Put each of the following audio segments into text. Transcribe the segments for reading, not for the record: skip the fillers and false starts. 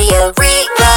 Raidió Rí-Rá.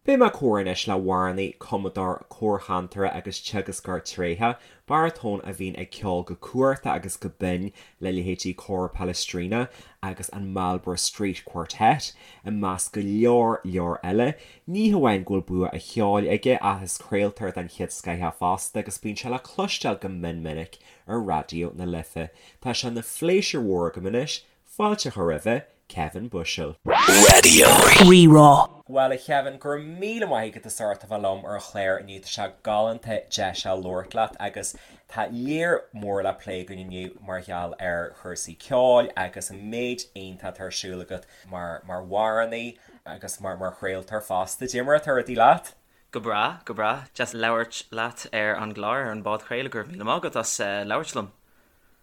Beidh mé ag comhrá anois le hamhránaí, cumadóir, córchantaire agus teagascóir tréitheach, baratón a bhíonn ag ceol go cumhachtach agus go binn le leithéidí Cór Palestrina agus an Marlborough Street Quartet, i measc go leor leor eile. Ní hamháin go bhfuil bua an cheoil aige ach is craoltóir den chéad scoth é fosta agus bíonn sé le cloisteáil go mion minic ar Raidió na Life. Tá sé ina phléisiúr mhór agam anois fáilte a chur roimhe, Kevin Bushell. Raidió Rí-Rá. Bhuel, a Chevin, go raibh míle maith agat as ucht a bheith liom ar an chlár inniu. Tá sé galánta deis a labhairt leat agus tá lear mór le plé againn inniu mar gheall ar chúrsaí ceoil agus an méid iontach atá ar siúl agat mar mar amhránaí agus mar mar chraoltóir fosta. Cad é mar atá rudaí leat? Go breá, go breá. Deas labhairt leat ar an gclár, ar an bpodchraoladh. Go raibh míle maith agat as labhairt liom.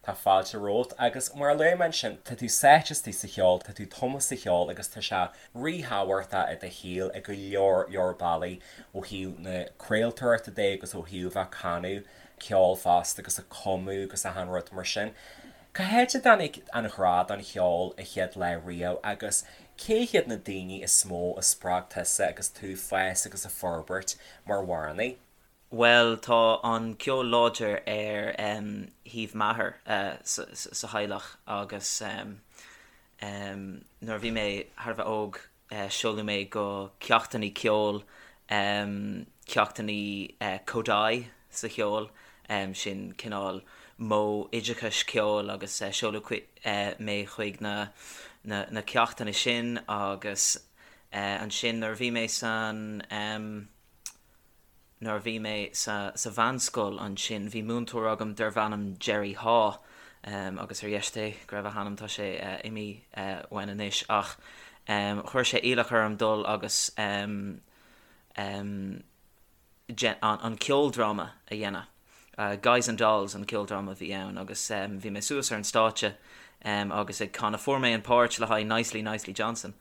Tá fáilte romhat agus mar a luaigh mé ansin, tá tú sáite istigh sa cheol, tá tú tumtha sa cheol agus tá sé ríthábhachtach i do shaol i go leor leor bealaí, ó thaobh na craoltóireachta de agus ó thaobh bheith ag canadh ceol fosta agus ag cumadh agus achan rud mar sin. Cá háit a dtáinig an ghrá don cheol a chéad lá riamh agus cé hiad na daoine is mó a spreag tusa agus tú ag fás agus ag forbairt mar amhránaí? Bhuel, tá an ceol láidir ar thaobh m'athar sa theaghlach agus nuair a bhí mé thar a bheith óg seoladh mé go ceachtanna ceoil, ceachtanna Kodály sa cheol, sin cineál modh oideachais ceoil agus seoladh mé chuig na ceachtanna sin agus ansin nuair a bhí mé san. Nuair a bhí mé sa sa mheánscoil ansin bhí múinteoir agam darbh ainm Jerry Haw agus ar dheis Dé go raibh a hanam, tá sé imithe uainn anois ach chuir sé iallach orm dul agus an ceoldráma a dhéanamh. Guys and Dolls an ceoldráma a bhí ann agus bhí mé suas ar an stáitse agus ag canadh. Fuair mé an páirt le haghaidh Nicely Nicely Johnson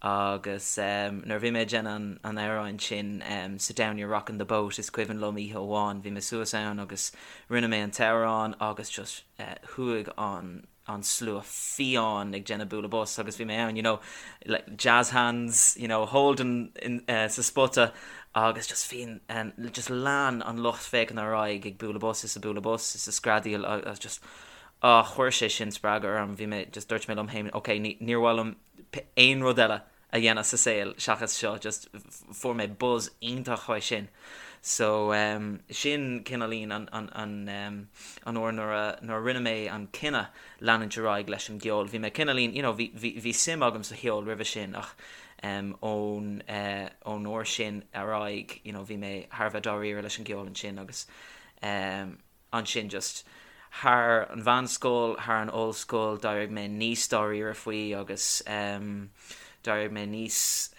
agus nuair a bhí mé ag déanamh an amhráin sin Sit Down You're Rocking the Boat is cuimhin liom oíche amháin bhí mé suas ann agus rinne mé an t-amhrán agus just chuaigh an an slua fiáin ag déanamh bualadh bos agus bhí mé ann you know like jazz hands you know holding in sa spota agus just bhí an just lean an lucht féachana ar aghaidh ag bualadh bos is ag bualadh bos is ag screadaíl agus just ah chuir sé sin spreagadh orm bhí mé just dúirt mé liom féin ok ní níor mhaith liom aon rud eile a dhéanamh sa saol seachas seo, just fuair mé buzz iontach uaidh sin. So sin cineáilín an an an an uair nuair a nuair a rinne mé an cinneadh leanúint ar aghaidh leis an gceol. Bhí mé cineáilín you know bhí bhí bhí suim agam sa cheol roimhe sin ach ón ón uair sin ar aghaidh you know bhí mé thar a bheith dáiríre leis an gceol ansin agus Ansin just thar an mheánscoil, thar an ollscoil, d'éirigh mé níos dáiríre faoi agus d'éirigh mé níos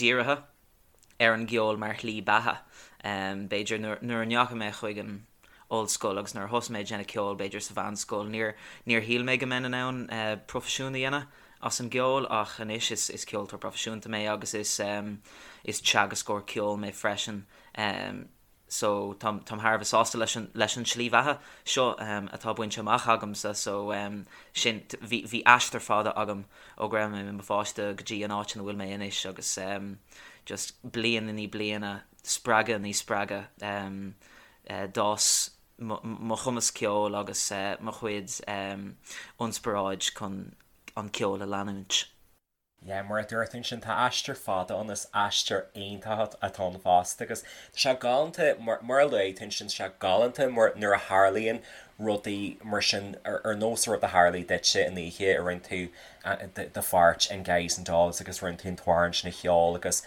dírithe ar an gceol mar shlí beatha. B'fhéidir nuair a ndeachaigh mé chuig an ollscoil agus nuair a thosaigh mé ag déanamh ceoil, b'fhéidir sa mheánscoil, níor níor shíl mé go mbeinn in ann proifisiún a dhéanamh as an gceol ach anois is is ceoltóir proifisiúnta mé agus is is teagascóir ceoil mé freisin. so táim táim thar a bheith sásta leis an leis an tslí bheatha seo atá bainte amach agamsa so sin bhí bhí aistear fada agam ó go raibh mé i mo pháiste go dtí an áit ina bhfuil mé anois agus just bliain i ndiaidh bliana spreagadh i ndiaidh spreagadh d'fhás mo mo chumas ceoil agus mo chuid ionspioráid chun an ceol a leanúint. Yeah, mar a dúirt tú ansin, tá aistear fada ann, is aistear iontach atá ann fosta agus tá sé galánta, mar a luaigh tú ansin, tá sé galánta mar nuair a tharlaíonn rudaí mar sin ar nós an rud a tharlaigh duitse an oíche a rinne tú do pháirt in Guys and Dolls agus rinne tú an t-amhrán sin a cheol agus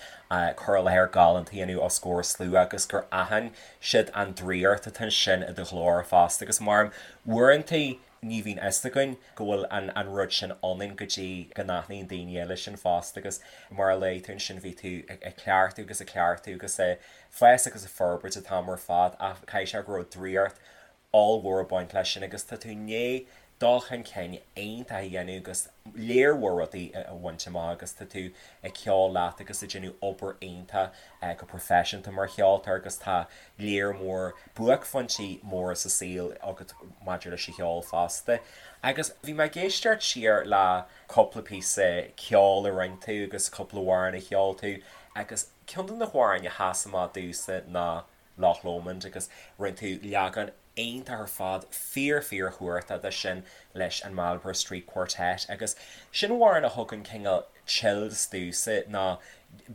cur i láthair galánta a dhéanamh os comhair slua agus gur aithin siad an draíocht atá ansin i do ghlór fosta agus mar uaireanta Ní bhíonn fhios againn go bhfuil an an rud sin ionainn go dtí go n-aithníonn daoine eile sin fosta agus mar a luaigh tú ansin bhí tú ag cleachtadh agus ag cleachtadh agus ag fás agus ag forbairt an t-am ar fad ach caithfidh sé go raibh draíocht ollmhór ag baint leis sin agus tá tú i ndiaidh. dul chun cinn iontach a dhéanamh agus léar mhór rudaí a bhaint amach agus tá tú ag ceol leat agus ag déanamh obair iontach go proifisiúnta mar cheoltóir agus tá léar mór buaicphointí móra sa saol agat maidir leis an cheol fosta. Agus bhí mé ag éisteacht siar le cúpla píosa ceoil a rinne tú agus cúpla amhrán a cheol tú agus ceann de na hamhráin a sheas amach domhsa ná Loch Lomond agus rinne tú leagan iontach ar fad, fíor fíor chumhachtach de sin leis an Marlborough Street Quartet agus sin amhrán a thugann cineál chills domhsa nó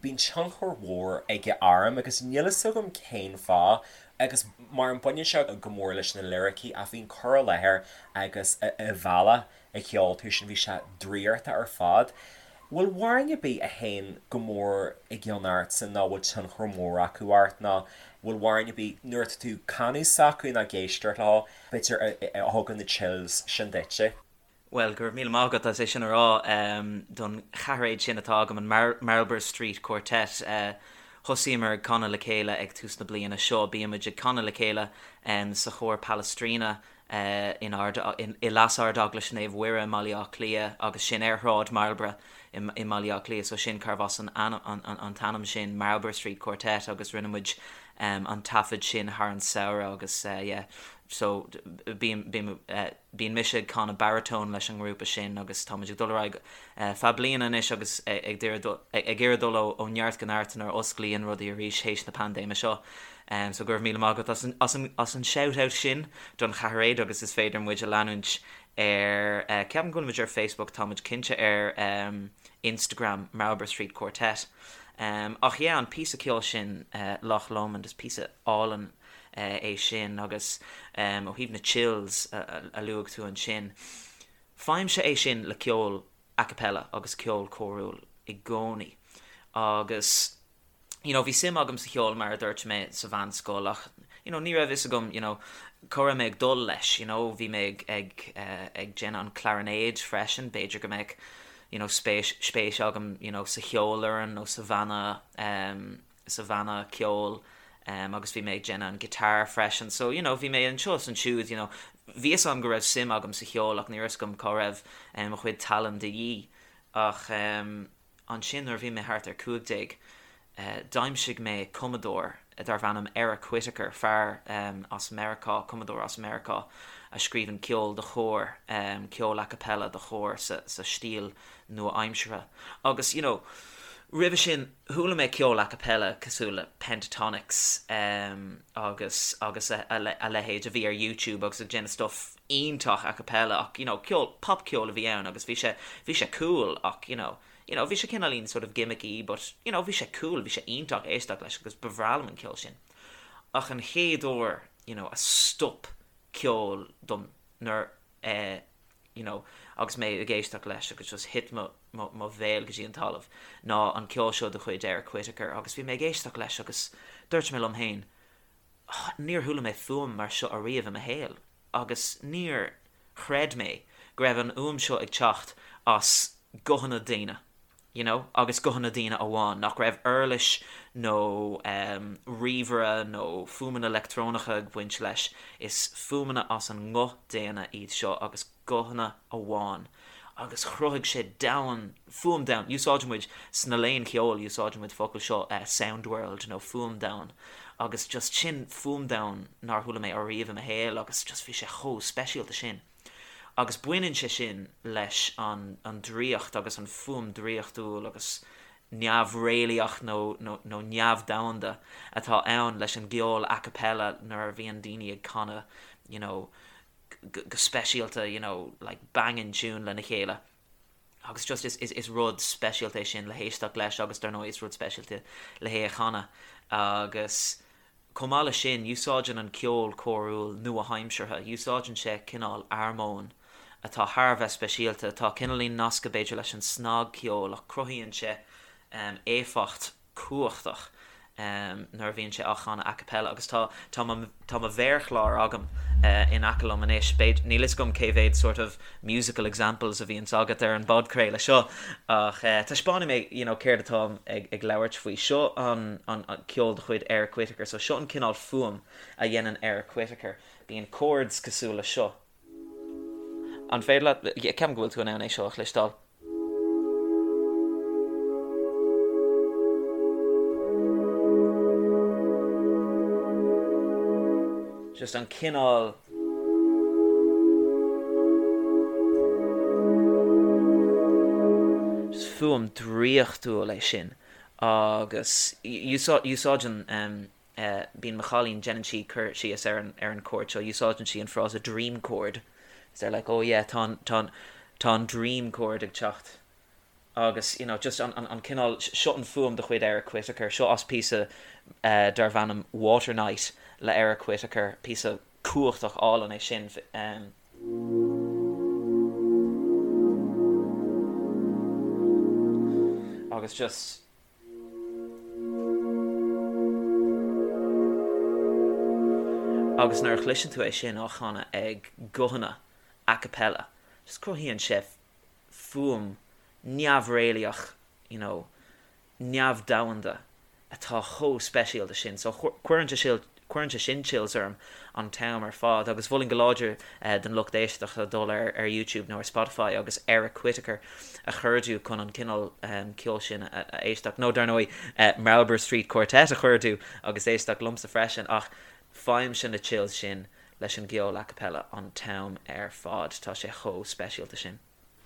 bíonn tionchar mhór aige orm agus níl fhios agam cén fáth agus mar an baineann sé go mór leis na liricí ach bhí an cur i láthair agus an bealach a cheol tú sin, bhí sé draíochta ar fad. Bhfuil amhráin ar bith a théann go mór i gcion ortsa nó bhfuil tionchar mór acu ort nó bhfuil amhráin ar bith nuair atá tú ag canadh s'acu nó ag éisteacht leo, b'fhéidir, a thugann na chills sin duitse? Bhuel, go raibh míle maith agat as é sin a rá don cheathairéad sin atá agam, an Marlborough Street Quartet. Thosaíomar ag canadh le chéile ag tús na bliana seo. Bímid ag canadh le chéile sa chór Palestrina in Ard, i Leas-Ardeaglais Naomh Mhuire i mBaile Átha Cliath agus sin ar Shráid Marlborough i mBaile Átha Cliath so sin cárbh as an an t-ainm sin Marlborough Street Quartet agus rinne muid an taifead sin thar an samhradh agus yeah so bím bím bíonn mise ag canadh baritone leis an ngrúpa sin agus tá muid ag dul ar aghaidh feadh bliana anois agus ag iarraidh dul ó neart go neart nuair a osclaíonn rudaí arís théis na paindéime seo. So go raibh míle maith agat as an, as an, as an shout out sin don cheathairéad agus is féidir muid a leanúint ar, ceapaim go bhfuil muid ar Facebook, tá muid cinnte ar Instagram, Marlborough Street Quartet. Ach yeah, an píosa ceoil sin, Loch Lomond, is píosa álainn é sin agus ó thaobh na chills a luaigh tú ansin, faighimse é sin le ceol a cappella agus ceol córúil i gcónaí agus you know, bhí suim agam sa cheol mar a dúirt mé sa mheánscoil ach you know, ní raibh fhios agam you know, cá raibh mé ag dul leis, you know, bhí mé ag, ag, eh, ag déanamh an clarinéid freisin, b'fhéidir go mbeadh you know, spéis, spéis agam you know, sa cheolfhoireann nó sa bhanna, um, sa bhanna ceoil um, agus bhí mé ag déanamh an guitar freisin, so you know, bhí mé anseo is ansiúd, you know, bhí fhios agam go raibh suim agam sa cheol ach ní raibh fhios agam cá raibh um, mo chuid tallann de dhíth ach um, Ansin nuair a bhí mé thart ar 15, d'aimsigh mé cumadóir darbh ainm Eric Whitacre, fear as Meiriceá, cumadóir as Meiriceá a scríobhann ceol do chór, ceol a cappella do chór sa stíl nua-aimseartha. Agus, you know, roimhe sin chuala mé ceol a cappella cosúil le Pentatonix agus agus a leithéid a bhí ar YouTube agus ag déanamh stuff iontach a cappella ach you know ceol popcheol a bhí ann agus bhí sé bhí sé cool ach you know you know bhí sé cineáilín sort of gimmicky but you know bhí sé cool bhí sé iontach éisteacht leis agus ba bhreá liom an ceol sin ach an chéad uair you know a stop ceol dom nuair eh you know agus mé ag éisteacht leis agus just thit mo mo mo bhéal go dtí an talamh ná an ceol seo de chuid Eric Whitacre agus bhí mé ag éisteacht leis agus dúirt mé liom féin Níor chuala mé fuaim mar seo ariamh i mo shaol agus níor chreid mé go raibh an fhuaim seo ag teacht as guthanna daoine, you know, agus guthanna daoine amháin, nach raibh uirlis nó ríomhaire nó fuaimeanna leictreonacha ag baint leis, is fuaimeanna as an nguth daonna iad seo agus guthanna amháin agus chruthaigh sé domhan, fuaim domhan, úsáideann muid sna léinn cheoil, úsáideann muid focal seo sound world nó fuaim domhan agus just sin fuaim domhan nár chuala mé ariamh i mo shaol agus just bhí sé chomh speisialta sin. Agus baineann sé sin leis an an draíocht agus an fuaim draíochtúil agus neamhréalaíoch nó nó nó neamhdhomhanda atá ann leis an gceol a cappella nuair a bhíonn daoine ag canadh you know go speisialta you know like banging tune lena chéile agus just is, is, is rud speisialta é sin le héisteacht leis agus dar ndóigh is rud speisialta le hé a chanadh agus chomh maith leis sin úsáideann an ceol córúil nua-aimseartha, úsáideann sé cineál armóin atá thar a bheith speisialta, atá cineáilín nasctha b'fhéidir leis an snagcheol ach cruthaíonn sé um, éifeacht cumhachtach nuair a bhíonn sé á chanadh a cappella agus tá tá mo tá mo mhéarchlár agam in aice liom anois. B'fhéidir níl fhios agam cé mhéad sort of musical examples a bhíonns agat ar an bpodchraoladh seo ach taispeánfaidh mé you know céard atáim ag ag labhairt faoi. Seo an an ceol de chuid Eric Whitacre so seo an cineál fuaim a dhéanann Eric Whitacre. Bíonn chords cosúil le seo. An féidir leat, ceapaim go bhfuil tú in ann é seo a chloisteáil. Just an cineál. Just fuaim draíochtúil é sin agus úsáideann bíonn mo chailín, déanann sí cur síos ar an ar an chord seo, úsáideann sí an frása dream chord. They're like, oh yeah, tá an, tá an, tá an dream chord ag teacht. Agus, you know, just an, an, an cineál, seo an fuaim de chuid Eric Whitacre, seo as píosa darb ainm Water Night le Eric Whitacre, píosa cumhachtach álainn é sin. Agus just. Agus nuair a chloiseann tú é sin á chanadh ag guthanna a cappella, just cruthaíonn sé fuaim neamhréalaíoch, you know, neamhdhomhanda atá chomh speisialta sin. So cuireann sé cuireann sé sin chills orm an t-am ar fad agus mholfainn go láidir don lucht éisteachta dul ar ar YouTube nó ar Spotify agus Eric Whitacre a chuardú chun an cineál ceoil sin a éisteacht nó dar ndóigh Marlborough Street Quartet a chuardú agus éisteacht liomsa freisin ach faighimse na chills sin leis an gceol a cappella an t-am ar fad. Tá sé chomh speisialta sin.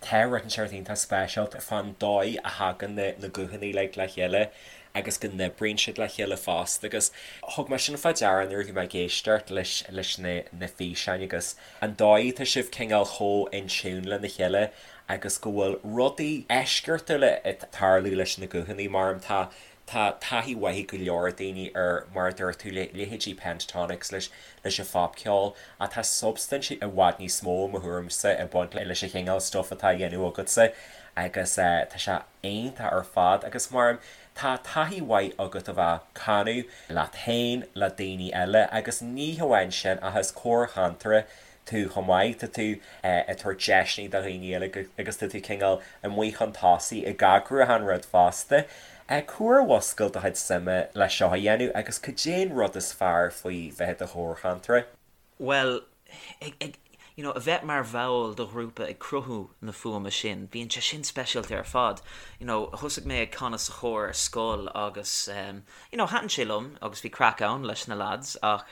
Tá rud inteacht iontach speisialta fán dóigh a thagann na guthanna uilig le chéile agus go n-oibríonn siad le chéile fosta agus thug mé sin fá deara nuair a bhí mé ag éisteacht leis leis na na físeáin agus an dóigh atá sibh cineál chomh in tune lena chéile agus go bhfuil rudaí eisceachtúla ag tarlú leis na guthanna mar tá Tá taithí mhaith ag go leor daoine ar, mar a dúirt tú, leithéidí Pentatonix leis leis an phopcheol, ach tá substaint i bhfad níos mó, i mo thuairimse, ag baint leis an chineál stuif atá á dhéanamh agatsa agus tá sé iontach ar fad. Agus mar, tá taithí mhaith agat a bheith ag canadh leat féin, le daoine eile agus ní hamháin sin ach is córchantaire tú chomh maith, tá tú ag tabhairt deiseanna do dhaoine eile agus tá tú cineál amuigh chun tosaigh ag eagrú achan rud fosta. Cá huair a mhúscail do chuid suime le seo a dhéanamh agus cad é an rud is fearr faoi bheith i do chórchantaire? Bhuel, ag, ag, you know, a bheith mar bhall de ghrúpa ag cruthú na fuaime sin, bíonn sé sin speisialta ar fad. You know, thosaigh mé ag canadh sa chór ar scoil agus, you know, thaitin sé liom agus bhí craic ann leis na lads ach,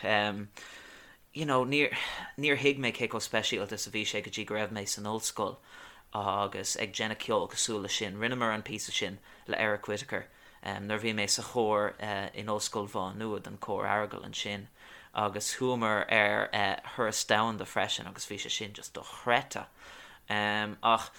you know, níor, níor thuig mé cé chomh speisialta is a bhí sé go dtí go raibh mé san ollscoil agus ag déanamh ceol cosúil leis sin. Rinneamar an píosa sin le Eric Whitacre nuair a bhí mé sa chór in Ollscoil Mhá Nuad, an Cór Aireagail ansin, agus chuamar ar thuras domhanda freisin agus bhí sé sin just dochreidte. Ach,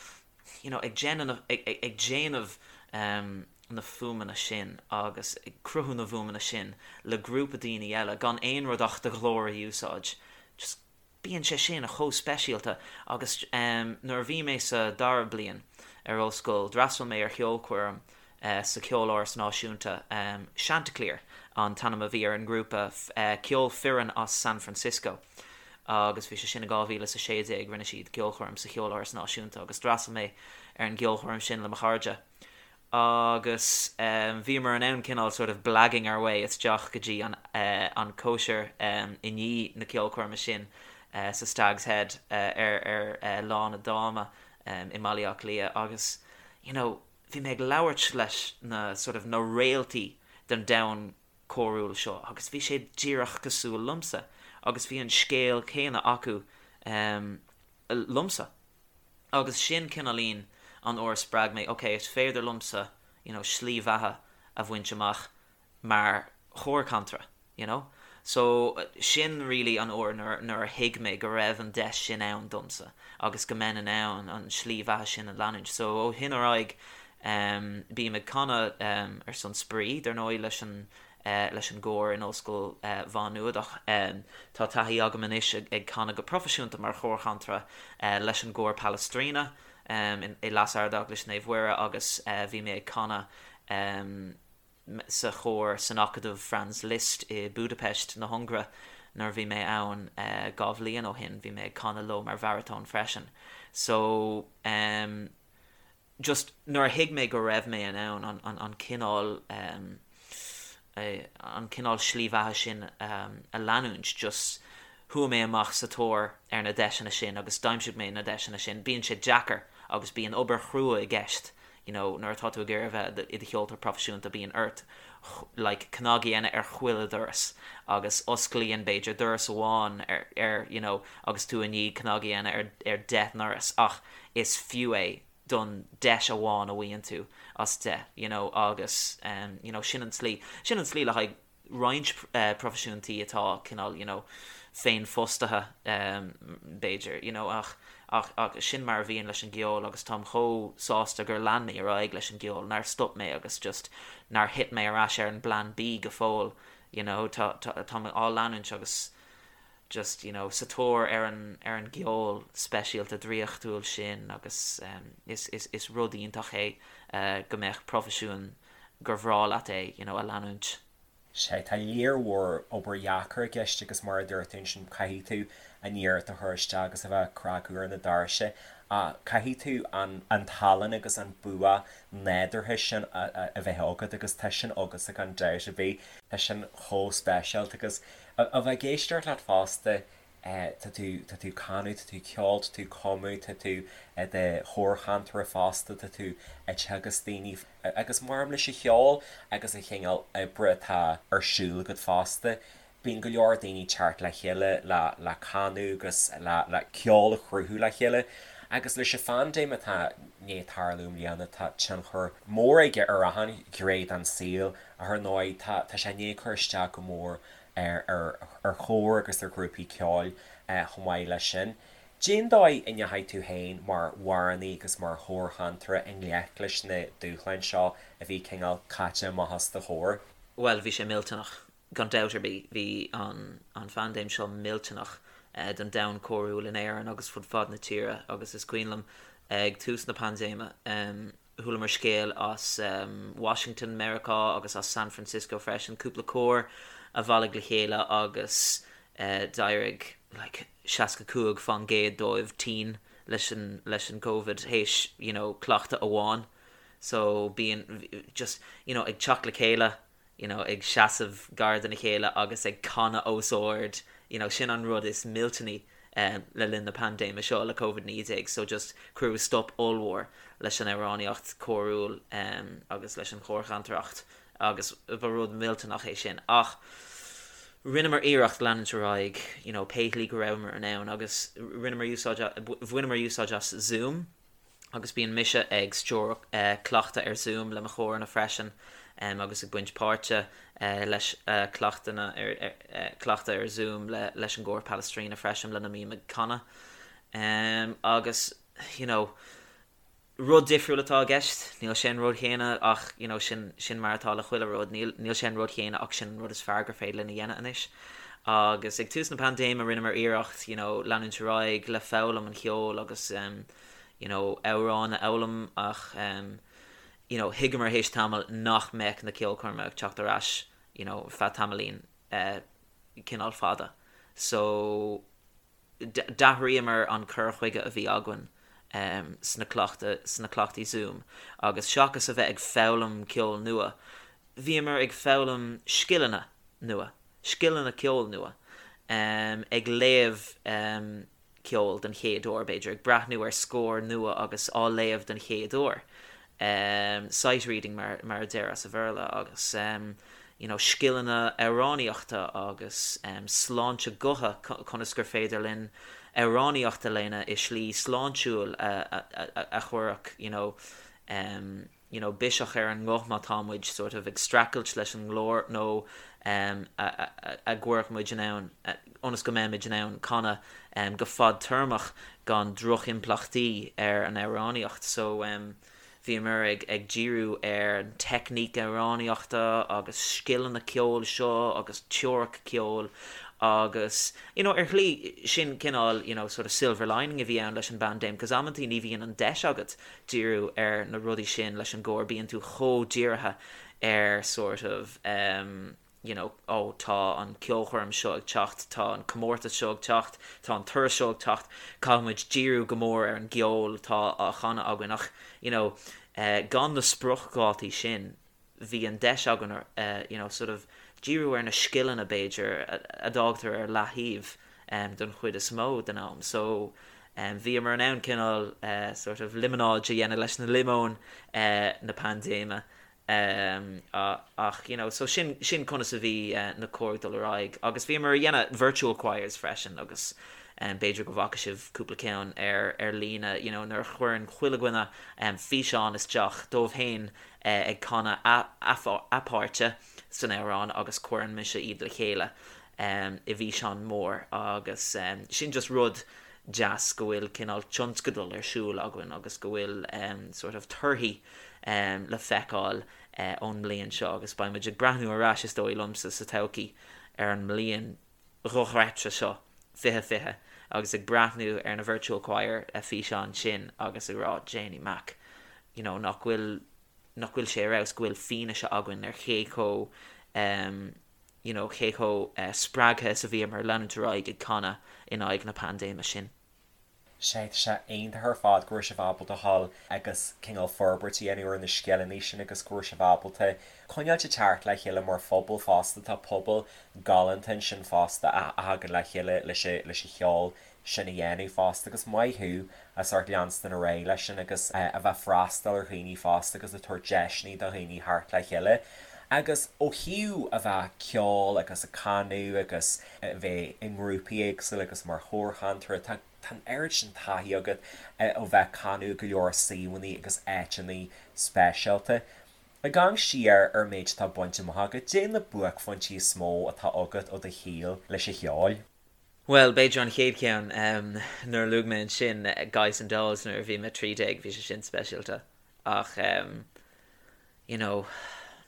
you know, ag déanamh, ag déanamh na fuaimeanna sin agus ag cruthú na bhfuaimeanna sin le grúpa daoine eile gan aon rud ach do ghlór a úsáid, just bíonn sé sin chomh speisialta agus nuair a bhí mé sa dara bliain ar ollscoil d'fhreastail mé ar cheolchoirm sa Cheoláras Náisiúnta, Chanticleer an t-ainm a bhí ar an ngrúpa, ceol fireann as San Francisco agus bhí sé sin i 2016, rinne siad ceolchoirm sa Cheoláras Náisiúnta agus d'fhreastail mé ar an gceolchoirm sin le mo chairde. agus bhíomar in ann cineál sort of blagging our way isteach go dtí an an cóisir i ndiaidh na ceolchoirme sin sa Stag's Head ar ar Lána Dáma i mBaile Átha Cliath agus you know bhí mé ag labhairt leis na sort of na réaltaí den domhan córúil seo agus bhí sé díreach cosúil liomsa agus bhí an scéal céanna acu liomsa. Agus sin cineáilín an uair a spreag mé, ok, is féidir liomsa, you know, slí bheatha a bhaint amach mar chórchantaire, you know. So, sin really an uair nuair, nuair a thuig mé go raibh an deis sin ann domsa agus go mbeinn in ann an slí bheatha sin a leanúint. So, ó shin ar aghaidh, em, bím ag canadh, em, ar son spraoi, dar ndóigh, leis an, leis an gcór in Ollscoil Mhá Nuad ach tá taithí agam anois ag canadh go proifisiúnta mar chórchantaire leis an gcór Palestrina i Leas-Ardeaglais Naomh Mhuire agus bhí mé ag canadh sa chór san Acadamh Franz Liszt i Budapest na hUngaire nuair a bhí mé ann 2 bhliain ó shin. Bhí mé ag canadh leo mar bharatón freisin. So. just nuair a thuig mé go raibh mé in ann an, an, an cineál um, an cineál slí bheatha sin um, a leanúint, just Chuaigh mé amach sa tóir ar na deiseanna sin agus d'aimsigh mé na deiseanna sin. Bíonn sé deacair agus bíonn obair chrua i gceist, you know, nuair atá tú ag iarraidh a bheith i do cheoltóir proifisiúnta bíonn ort like cnag a dhéanamh ar chuile dhoras agus osclaíonn b'fhéidir doras amháin ar, ar you know, agus tú i ndiaidh cnag a dhéanamh ar, ar 10 ndoras ach is fiú é don deis amháin a bhfaigheann tú as 10, you know, agus um, you know, sin an tslí, sin an tslí le haghaidh roinnt proifisiúntaí atá cineál you know féinfhostaithe b'fhéidir you know ach ach ach sin mar a bhíonn leis an gceol agus táim chomh sásta gur lean mé ar aghaidh leis an gceol, nár stop mé agus just nár thit mé ar ais ar an bplean B go fóill you know tá tá tá mé á leanúint agus just you know sa tóir ar an ar an gceol speisialta draíochtúil sin agus is is is rud iontach é go mbeadh proifisiún gur bhreá leat é you know a leanúint. Sea, tá léar mhór obair dheacair i gceist agus mar a dúirt tú ansin caithfidh tú an iarracht a chur isteach agus a bheith ag cnagadh ar na doirse ach caithfidh tú an an tallann agus an bua nádúrtha sin a bheith agat agus tá sin agatsa gan dabht ar bith. Tá sin chomh speisialta agus a bheith ag éisteacht leat fosta tá tú, tá tú ag canadh, tá tú ag ceol, tá tú ag cumadh, tá tú i do chórchantaire fosta, tá tú ag teagasc daoine agus maraon leis an cheol agus an chineál oibre atá ar siúl agat fosta, bíonn go leor daoine ag teacht le chéile le le canadh agus le le ceol a chruthú le chéile. Agus leis an phaindéim atá i ndiaidh tarlú i mbliana tá tionchar mór aige ar achan ghné den saol ach ar ndóigh tá tá sé i ndiaidh cur isteach go mór ar chóir agus ar ghrúpaí ceoil chomh maith leis sin. Cén dóigh a ndeachaigh tú féin mar amhránaí agus mar chórchantaire i ngleic leis na dúshláin seo a bhí cineál caite amach os do chomhair? Bhuel, bhí sé millteanach, gan dabht ar bith. Bhí an an phaindéim seo millteanach don domhan córúil in Éirinn agus fud fad na tíre agus is cuimhin liom ag tús na paindéime, Chualamar scéal as Washington, Meiriceá agus as San Francisco freisin, cúpla cór a bhailigh le chéile agus d'éirigh like 65 fán gcéad dóibh tinn leis an leis an Covid théis you know cleachtadh amháin. So bíonn just you know ag teacht le chéile you know, ag seasamh gar dona chéile agus ag canadh os ard, you know, sin an rud is millteanaí le linn na paindéime seo le Covid-19, so just cuireadh stop ollmhór leis an amhránaíocht chórúil agus leis an chórchantaireacht agus ba rud millteanach é sin. Ach rinneamar iarracht leanúint ar aghaidh, you know, pé shlí go rabhamar in ann agus rinneamar úsáid, bhaineamar úsáid as Zoom, agus bíonn mise ag stiúradh cleachtadh ar Zoom le mo chóranna freisin agus ag baint páirte leis cleachtanna cleachtadh ar Zoom le leis an gcór Palestrina freisin lena mbím ag canadh. Agus you know rud difriúil atá i gceist, níl sé an rud chéanna ach you know sin sin mar atá le chuile rud, níl níl sé an rud chéanna ach sin an rud is fearr gur féidir linn a dhéanamh anois. Agus ag tús na paindéime rinneamar iarracht you know leanúint ar aghaidh le foghlaim an cheoil agus you know amhráin a fhoghlaim ach you know thuigeamar théis tamaill nach mbeadh na ceolchoirmeacha ag teacht ar ais you know feadh tamaillín eh cineál fada so d'athraíomar an cur chuige a bhí againn em sna cleachta sna cleachtaí Zoom agus seachas a bheith ag foghlaim ceol nua bhíomar ag foghlaim scileanna nua scileanna ceoil nua em ag léamh em ceol den chéad uair, b'fhéidir, ag breathnú ar scór nua agus á léamh den chéad uair, sight reading mar mar a deir as a Bhéarla, agus you know scileanna amhránaíochta agus sláinte gutha, conas gur féidir linn amhránaíocht a dhéanamh i slí sláintiúil a a a chuirfeadh you know you know biseach ar an nguth má tá muid sort of ag streachailt leis an nglór nó em a a a gcuirfeadh muid in ann ionas go mbeimid in ann canadh em go fadtéarmach gan drochimpleachtaí ar an amhránaíocht so em bhíomar ag ag díriú ar an teicníc amhránaíochta agus scileanna ceoil seo agus teoiric ceoil agus you know ar shlí sin cineál you know sort of silver lining a bhí ann leis an bpaindéim 'cause amantaí ní bhíonn an deis agat díriú ar na rudaí sin leis an gcór, bíonn tú chomh dírithe ar sort of em you know oh tá an ceolchoirm seo ag teacht, tá an comórtas seo ag teacht, tá an turas seo ag teacht, caithfidh muid díriú go mór ar an gceol atá á chanadh againn ach you know eh gan na spriocdhátaí sin bhí an deis againn eh you know sort of díriú ar na scileanna b'fhéidir a d'fhágtar ar leaththaobh. don chuid is mó den am. So bhíomar in ann cineál sort of liomanáid a dhéanamh leis na liomóin na paindéime ach you know so sin sin conas a bhí na cóir ag dul ar aghaidh agus bhíomar a dhéanamh virtual choirs freisin agus b'fhéidir go bhfaca sibh cúpla ceann ar ar líne you know nuair a chuireann chuile dhuine físeán isteach dóibh féin ag canadh a a páirte san amhrán agus cuireann mise iad le chéile i bhfíseán mór agus sin just rud deas go bhfuil cineál tionscadal ar siúl againn agus go bhfuil sort of torthaí le feiceáil ón mbliain seo agus beidh muid ag breathnú ar ais is dóigh liomsa sa todhchaí ar an mbliain dhochreidte seo 2020 agus ag breathnú ar na virtual choir físeáin sin agus ag rá Janey Mac you know nach bhfuil nach bhfuil sé ar fheabhas go bhfuil fianaise againn ar cé chomh you know cé chomh spreagtha is a bhíomar leanúint ar aghaidh ag canadh in aghaidh na paindéime sin. Sea, tá sé iontach ar fad go raibh sibh ábalta dhul agus cineál forbairt a dhéanamh ar na scileanna sin agus go raibh sibh ábalta coinneáilt ag teacht le chéile mar phobal fosta. Tá pobal galánta ansin fosta a thagann le chéile leis an cheol sin a dhéanamh fosta agus maith thú as ucht leanstan ar aghaidh leis sin agus a bheith ag freastal ar dhaoine fosta agus ag tabhairt deiseanna do dhaoine theacht le chéile. Agus ó thaobh a bheith ag ceol agus ag canadh agus a bheith i ngrúpaí éagsúla agus mar chórchantaire, tá tá an oiread sin taithí agat ó bheith ag canadh i go leor suíomhanna agus áiteanna speisialta. Ag amharc siar ar an méid atá bainte amach agat, caidé na buaicphointí is mó atá agat ó do shaol leis an cheol. Bhuel, b'fhéidir an chéad cheann, nuair a luaigh mé ansin Guys and Dolls nuair a bhí mé 13, bhí sé sin speisialta. Ach, you know,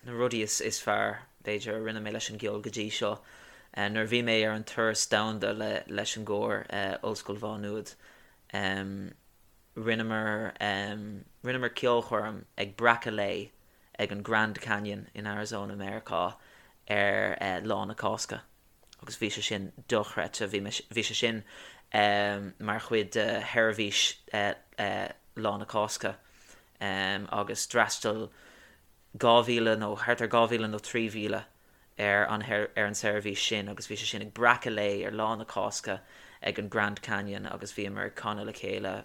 na rudaí is is fearr, b'fhéidir, a rinne mé leis an gceol go dtí seo, nuair a bhí mé ar an turas domhanda le leis an gcór Ollscoil Mhá Nuad, rinneamar rinneamar ceolchoirm ag breacadh lae ag an Grand Canyon in Arizona, Meiriceá ar Lá na Cásca. agus bhí sé sin dochreidte. Bhí mé, bhí sé sin mar chuid de sheirbhís Lá na Cásca agus d'fhreastail 2,000 nó thart ar 2,000 nó 3,000 ar an ar an seirbhís sin agus bhí sé sin ag breacadh lae ar Lá na Cásca ag an Grand Canyon agus bhíomar ag canadh le chéile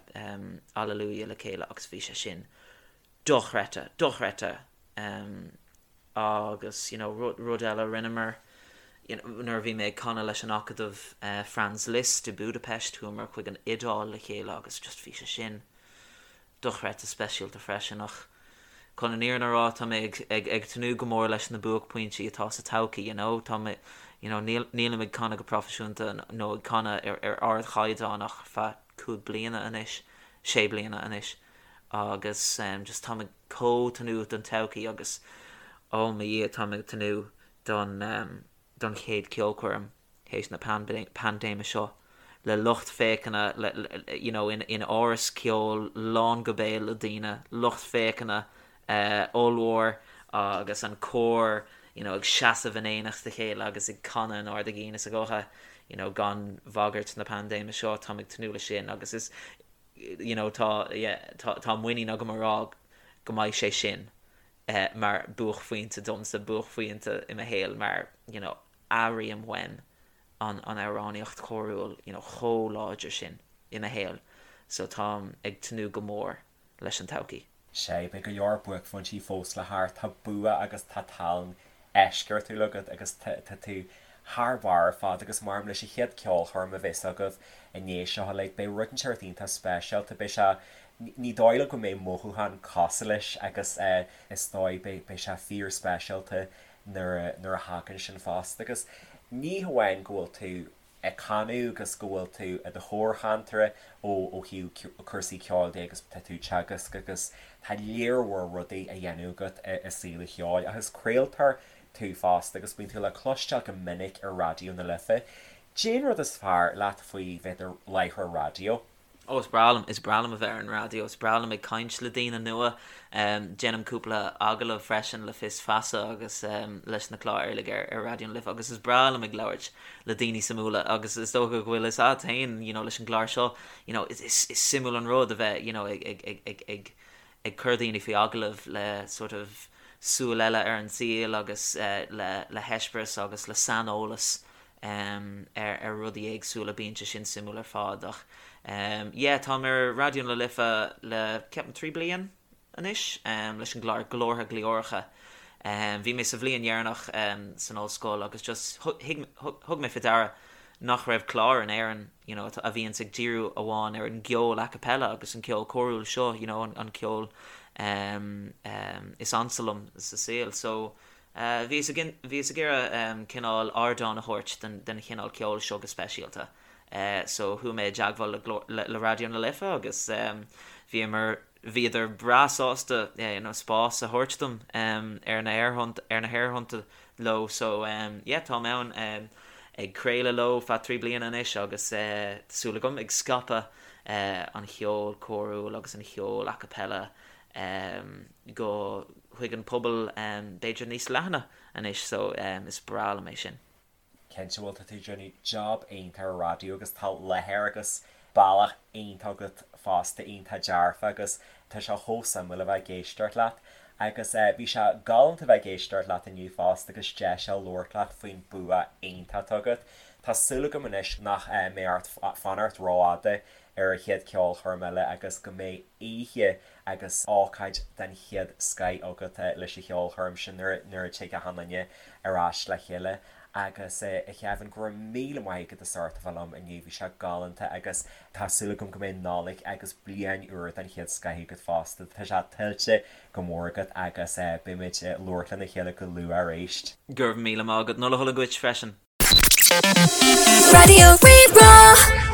Alleluia le chéile agus bhí sé sin dochreidte, dochreidte. Agus you know rud rud eile a rinneamar you know nuair a bhí mé ag canadh leis an Acadamh Franz Liszt i Budapest chuamar chuig an Iodáil le chéile agus just bhí sé sin dochreidte speisialta freisin ach chun an fhírinne a rá tá mé ag ag ag tnúth go mór leis na buaicphointí atá sa todhchaí you know tá mé you know níl nílim ag canadh go proifisiúnta nó ag canadh ar ar ardchaighdeán ach feadh cúig bliana anois sé bliana anois agus just táim ag chomh tnúth don todhchaí agus oh mo Dhia táim ag tnúth don don chéad ceolchoirm théis na paindéime seo le lucht féachana le you know in in áras ceoil lán go béal le daoine, lucht féachana ollmhór agus an cór you know ag seasamh in éineacht a chéile agus ag canadh in ard a gcinn is a gutha you know gan bhagairt na paindéime seo táim ag tnúth leis sin agus is you know tá yeah tá tá muinín agam a rá go mbeidh sé sin eh mar buaicphointe domsa, buaicphointe i mo shaol mar you know airím uaim an an amhránaíocht chórúil you know chomh láidir sin i mo shaol so táim ag tnúth go mór leis an todhchaí. Sea, beidh go leor buaicphointí fós le theacht. Tá bua agus tá tallann eisceachtúil agat agus tá tú thar barr ar fad agus maram leis an chéad ceolchoirm a bheas agaibh i ndiaidh seo uilig, beidh rud inteacht iontach speisialta, beidh sé, ní dóigh liom go mbeidh mothúchán cosúil leis agus is dóigh beidh, beidh sé fíor speisialta nuair a, nuair a thagann sin fosta agus ní hamháin go bhfuil tú ag canadh agus go bhfuil tú i do chórchantaire ó ó thaobh cúrsaí ceoil de agus tá tú ag teagasc agus tá léar mhór rudaí á dhéanamh agat i saol an cheoil ach is craoltóir tú fosta agus bíonn tú le cloisteáil go minic ar Raidió na Life. Cén rud is fearr leat faoi bheith i do láithreoir raidió? Ó, is breá liom, is breá liom a bheith ar an raidió, is breá liom ag caint le daoine nua. Déanaim cúpla agallamh freisin le Fios Feasa agus leis na cláir uilig ar ar Raidió na Life agus is breá liom ag labhairt le daoine suimiúla agus is dócha go bhfuil fhios agat féin, you know, leis an gclár seo, you know, is is is suimiúil an rud a bheith, you know, ag ag ag ag ag ag cur daoine faoi agallamh le sort of súil eile ar an saol agus le le heispéireas agus le saineolas. ar ar rudaí éagsúla, bíonn sé sin suimiúil ar fad ach yeah táim ar Raidió na Life le ceapaim 3 bliain anois leis an gclár Glórtha Glioracha. Bhí mé sa bhliain dheireanach san ollscoil agus just thug mé faoi deara nach raibh clár in Éirinn you know a bhíonns ag díriú amháin ar an gceol a cappella agus an ceol córúil seo you know an ceol is ansa liom sa saol so Bhíos ag bhíos ag iarraidh cineál ardán a thabhairt don don chineál ceoil seo go speisialta. So chuaigh mé i dteagmháil le Glór le Raidió na Life agus bhíomar bhíodar breá sásta you know spás a thabhairt dom ar na haerthonnta ar na haerthonnta leo so yeah táim ann ag craoladh leo feadh 3 bliana anois agus tá súil agam ag scaipeadh an cheoil córúil agus an cheoil a cappella go chuig an pobal b'fhéidir níos leathana anois so is breá liom é sin. Cinnte, bhuel tá tú ag déanamh job iontach ar raidió agus tá láthair agus bealach iontach agat fosta, iontach dearfa agus tá sé chomh suimiúil a bheith ag éisteacht leat. Agus bhí sé galánta a bheith ag éisteacht leat inniu fosta agus deis a labhairt leat faoin bua iontach atá agat. Tá súil agam anois nach mbeidh ort fanacht rófhada ar an chéad cheolchoirm eile agus go mbeidh oíche agus ócáid den chéad scoith agat leis an cheolchoirm sin nuair nuair a tig achan duine ar ais le chéile. Agus a Kevin, go raibh míle maith agat as ucht a bheith liom inniu, bhí sé galánta agus tá súil agam go mbeidh Nollaig agus bliain úr den chéad scoith agat fosta, tá sé tuillte go mór agat agus beimid ag labhairt lena chéile go luath arís. Go raibh míle maith agat, Nollaig shona duit freisin. Raidió Rí-Rá.